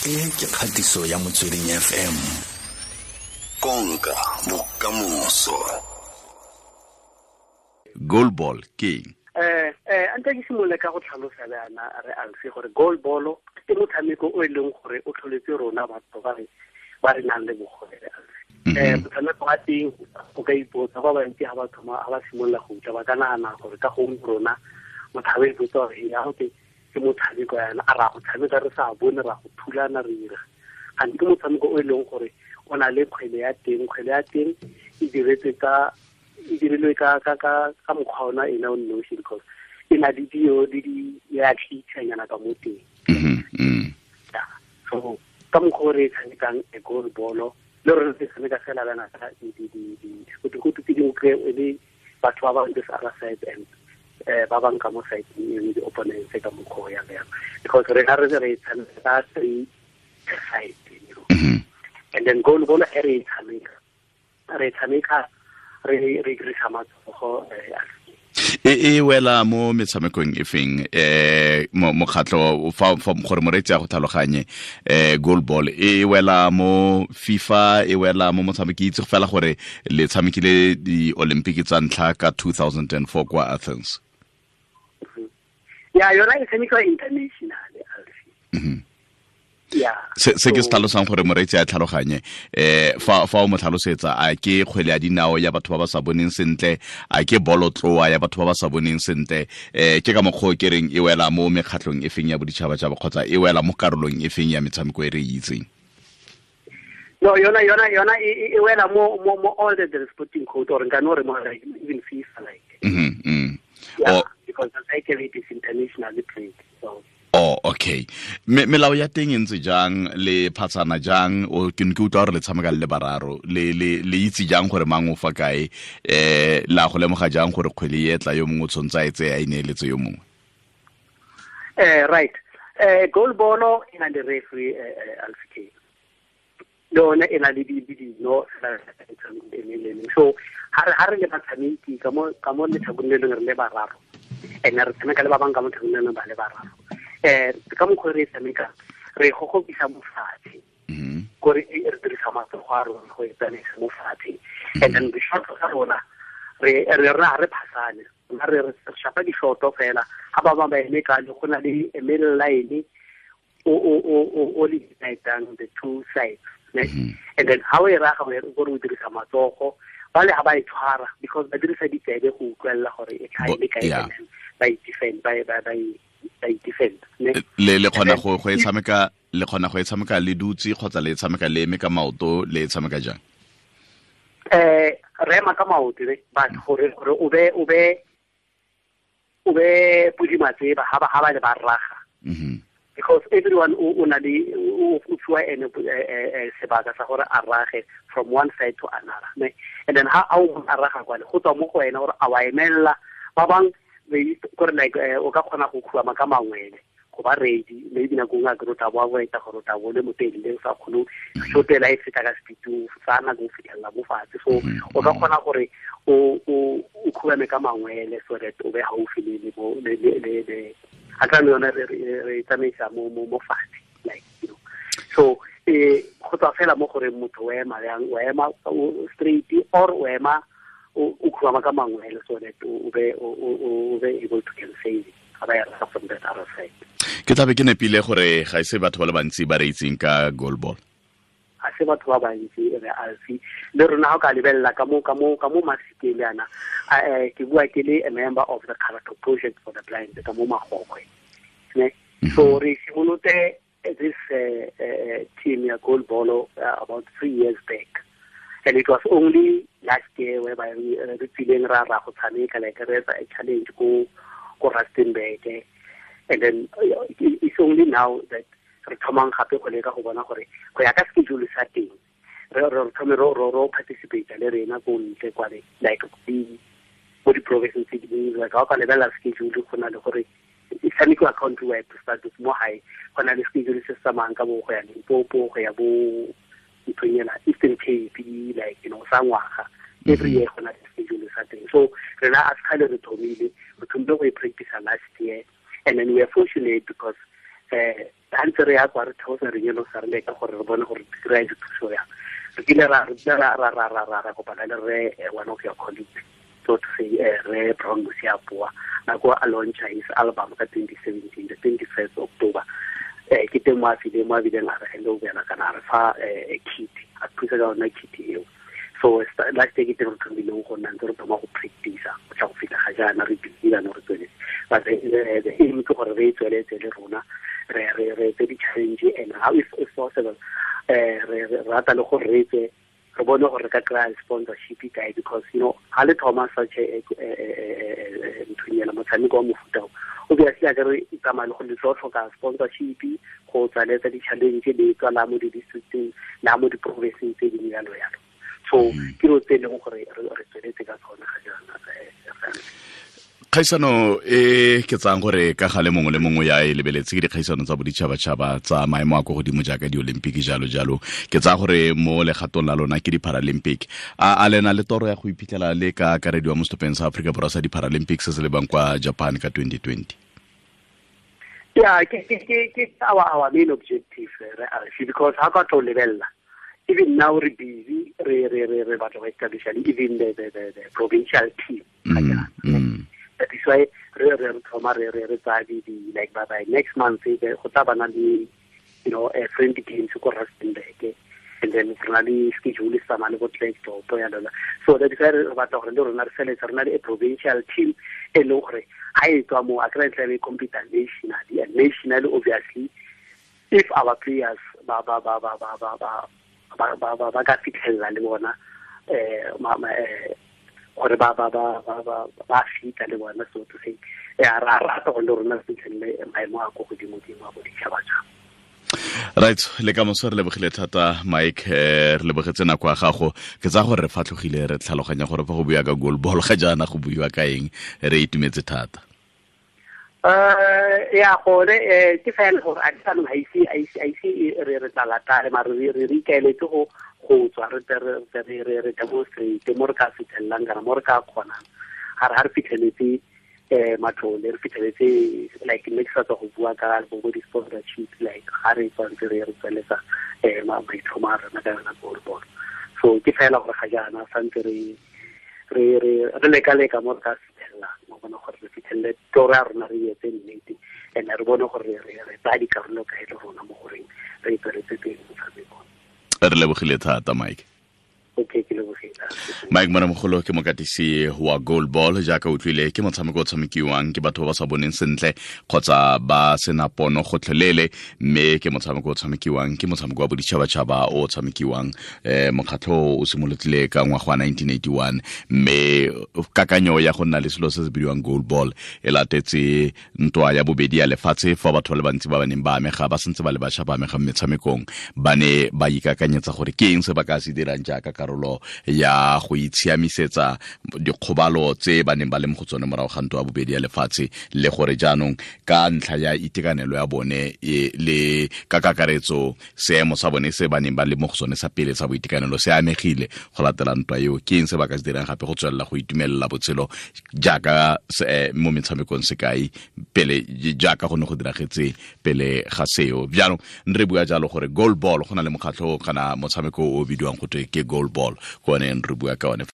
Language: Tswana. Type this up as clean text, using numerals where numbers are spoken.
E ke kgatiso ya Motsweding FM. Konka bokamoso. Goal ball ke eng? Anta ke simolole ka go tlhalosa le ana re alse gore goal ball ke motshameko o e leng gore o tlholetse rona batho ba re nang le bogole re alse. Motshameko wa teng o ka ipotsa ba bantsi ha ba thoma ha ba simolola go utlwa ba ka nagana gore ka gongwe rona motho a ipotsa gore ya go ke motshameko yana a ra go tshameka re sa bone ra go thulana re ira. Gantsi ke motshameko o e leng gore o na le kgwele ya teng, kgwele ya teng e diretswe ka e dirilwe ka ka ka ka mokgwa ona ena o nosi because e na le dio le di ya tlhitshanyana ka mo teng. So ka mokgwa o re tshamekang e goal ball le rona re tshameka fela bana ka di di di di go tse dingwe kry e le batho ba ba this other side and ba bang ka mo side e di opponents ka mokgwa ya ya because re ga re re tshameka three side, you know. And then goal ball e re tshameka re dirisa matsogo. E wela mo metshamekong e feng mokgatlho fa gore moreetsi a go tlhaloganye goal ball e wela mo FIFA, e wela mo motshameki itse fela gore le tshamekile di-Olympic tsa ntlha ka 2004 kwa Athens. Ya yona e tshamekiwa international. Yeah. Se ke se tlhalosang gore moreetsi a tlhaloganye fa o mo tlhalosetsa a ke kgwele ya dinao ya batho ba ba sa boneng sentle, a ke bolotloa ya batho ba ba sa boneng sentle, ke ka mokgwa o ke reng e wela mo mekgatlhong e feng ya boditšhabatšhaba kgotsa e wela mo karolong e feng ya metshameko e re e itseng? No, yona e wela mo all the sporting code or nka no re mo like even FIFA like. Yeah, because the cycle it is internationally played. So oh, okay. Melao ya teng e ntse jang, le phatsana jang, o ke ne ke utlwa gore le tshameka le bararo, le itse jang gore mang o fa kae, la go lemoga jang gore kgwele e tla yo mongwe o tshwanetse a e tseye a e neeletse yo mongwe? Right. Goal ball e na le referee alfike. Le yone e na le dino so ha re le batshameki ka mo letlhakoreng le lengwe re le bararo, and re tshameka le ba bangwe ka mo letlhakoreng le lengwe ba le bararo. Ka mokgwa re tshameka re gogobisa mo fatshe, kore re dirisa matsogo a rona go e tsamaisa mo fatshe, and then di-shot tsa rona re rena re phasane, rona re shapa di-shot fela ha ba bangwe ba eme ka le go na le middle line o le unitang the two sides, ne? And then ha o e raga gore o dirisa matsogo ba le ha ba e tshwara because ba dirisa ditsebe go utlwelela gore e tlhae le kae, and then ba e defend ba e defend. Le kgona go e tshameka, le kgona go e tshameka le dutse kgotsa le tshameka le eme ka maoto, le e tshameka jang? Re ema ka maoto ne, but gore o be podi matseba ha ba le ba raga. Because everyone o na le o fiwa ene sebaka sa gore a rage from one side to another, ne? And then ha o a raga kwale go tswa mo go wena gore a wa emella ba bang gore like o ka kgona go khubama ka mangwele go ba ready, maybe nako nngwe a ke rota bo avoida gore o tla bo le motelele o sa kgone shotela e feta ka speed sa nako o fitlhelela mo fatshe, so o ka kgona gore o khubame ka mangwele so that o be gaufi le a tla yona re tsamaisa mo fatshe, like you know. So go tswa fela mo gore motho o ema yang, o ema straight or o ema o khubama ka mangwele so that o be able to can save it from that other side. Ke tlabe ke nepile gore ga ise batho ba le bantsi ba re itseng ka goal ball. Ga se batho ba bantsi re alfi le rona ha o ka lebelela ka mo masikeng le ana, ke bua ke le a member of the Character Project for the Blind ka mo Magogwe, ne? So re simolotse this team ya goal ball about 3 years back, and it was only last year whereby re tsileng ra go tshameka like re etsa a challenge ko Rustenburg, and then it's only now that re thomang gape go leka go bona gore go ya ka schedule sa teng re thome ro participate le rena ko ntle kwa like mo di-province tse dingwe, like ha o ka lebelela schedule go na le gore e tshamekiwa country wide to start with mo gae, go na le schedule se se tsamayang ka bo go ya Limpopo, go ya bo nthong ena Eastern Cape, like you know, sa ngwaga every year go na le schedule sa teng. So rena a sekgale re thomile go e practice last year, and then we are fortunate because Ga ntse re ya kwa re theosa re nyolosa re leka gore re bone gore re kry-a dithuso yang. Re kile ra kopana le re one of your colleagues, so to say, Re Brown Mosiapoa, nako a launcha his album ka 2017, the 21st October. Ke teng mo a fileng, mo a bileng a re hand over kana a re fa kit, a thusa ka yona kit eo. So last year ke teng re thomileng go nna ntse re thoma go practice go tla go fitlha ga jaana re busy jaanong re tsweletse. But the aim ke gore re e tsweletse le rona, re etse di-challenge and how if possible, re rata le gore re etse, re bone gore re ka kry-a sponsorship kae, because you know ha le thoma such a nthonyana motshameko wa mofuta o, obviously a ke re tsamaya le go le tlo tlhoka sponsorship go tswaletsa di-challenge le tswa la mo di-districteng la mo di-provinceng tse dingwe jalo jalo. So ke dilo tse e leng gore re tsweletse ka tsona ga jaana. Kgaisano e ke tsang gore ka gale mongwe le mongwe ya e lebeletse ke dikgaisano tsa boditšhabatšhaba tsa maemo a ko godimo jaaka di-Olympic jalo jalo. Ke tsaya gore mo legatong la lona ke di-Paralympic. A lena le toro ya go iphitlhela le ka akarediwa mo setlhopheng sa Aforika Borwa sa di-Paralympic se se lebang kwa Japan ka 2020? Yeah, ke our main objective, re because ha ka tlo lebella, even now re busy re batla go establish even the provincial team. That is why re thoma re tsaya di like by next month go tla bana le, you know, a friendly games ko Rustenburg, and then re na le schedule sa mane bo Klerksdorp ya lona. So that is why re batla gore le rona re feletse re na le a provincial team e leng gore ha e tswa mo a kry tla be compete nationally, and nationally obviously if our players ba ka fitlhelela le bona gore ba fita le bona, so to say, ra rata gore le rona re fitlhelele maemo a ko godimo-dimo a boditšhabatšhaba. Right, le ka moso re lebogile thata Mike, re lebogetse nako ya gago. Ke tsaya gore re fatlhogile re tlhaloganya gore fa go buiwa ka goal ball ga jaana go buiwa ka eng, re itumetse thata. Ya gone ke fela gore a jaanong ga ise re tla latale, mare re ikaeletse go tswa re demonstrate mo re ka fitlhelelang kana mo re ka kgonang. Ga re fitlheletse matlole, re fitlheletse like ne ke sa tswa go bua ka bo di-sponsorship, like ga re tswantse re tsweletsa maitlhomo a rona ka yona goal ball. So ke fela gore ga jaana santse re leka-leka mo re ka fitlhelelang, mo bona gore re fitlhelele toro ya rona re etse nnete, and re bone gore re tsaya dikarolo kae le rona mo goreng re tsweletse pele motshamekong. Re lebogile thata Mike. Okay, ke lebogile. Mike Moramogolo ke mokatisi wa goal ball, jaaka utlwile ke motshameko o tshamekiwang ke batho ba ba sa boneng sentle kgotsa ba sena pono gotlhelele, mme ke motshameko o tshamekiwang ke motshameko wa boditšhabatšhaba o tshamekiwang mokgatlho o simolotile ka ngwaga wa 1981, mme kakanyo ya go nna le selo se se bidiwang goal ball e latetse ntwa ya bobedi ya lefatshe fa batho ba le bantsi ba ba neng ba amega ba santse ba le bašwa ba amega mo metshamekong ba ne ba ikakanyetsa gore ke eng se ba ka se dirang jaaka karolo ya go itshiamisetsa dikgobalo tse ba neng ba le mo go tsone morago ga ntwa ya bobedi ya lefatshe, le gore jaanong ka ntlha ya itekanelo ya bone le ka kakaretso seemo sa bone se ba neng ba le mo go sone sa pele sa boitekanelo se amegile go latela ntwa eo, ke eng se ba ka se dirang gape go tswelela go itumelela botshelo jaaka mo metshamekong sekai pele jaaka go ne go diragetse pele ga seo. Jaanong re bua jalo gore goal ball go na le mokgatlho kana motshameko o bidiwang go twe ke goal ball, ko one re bua ka one.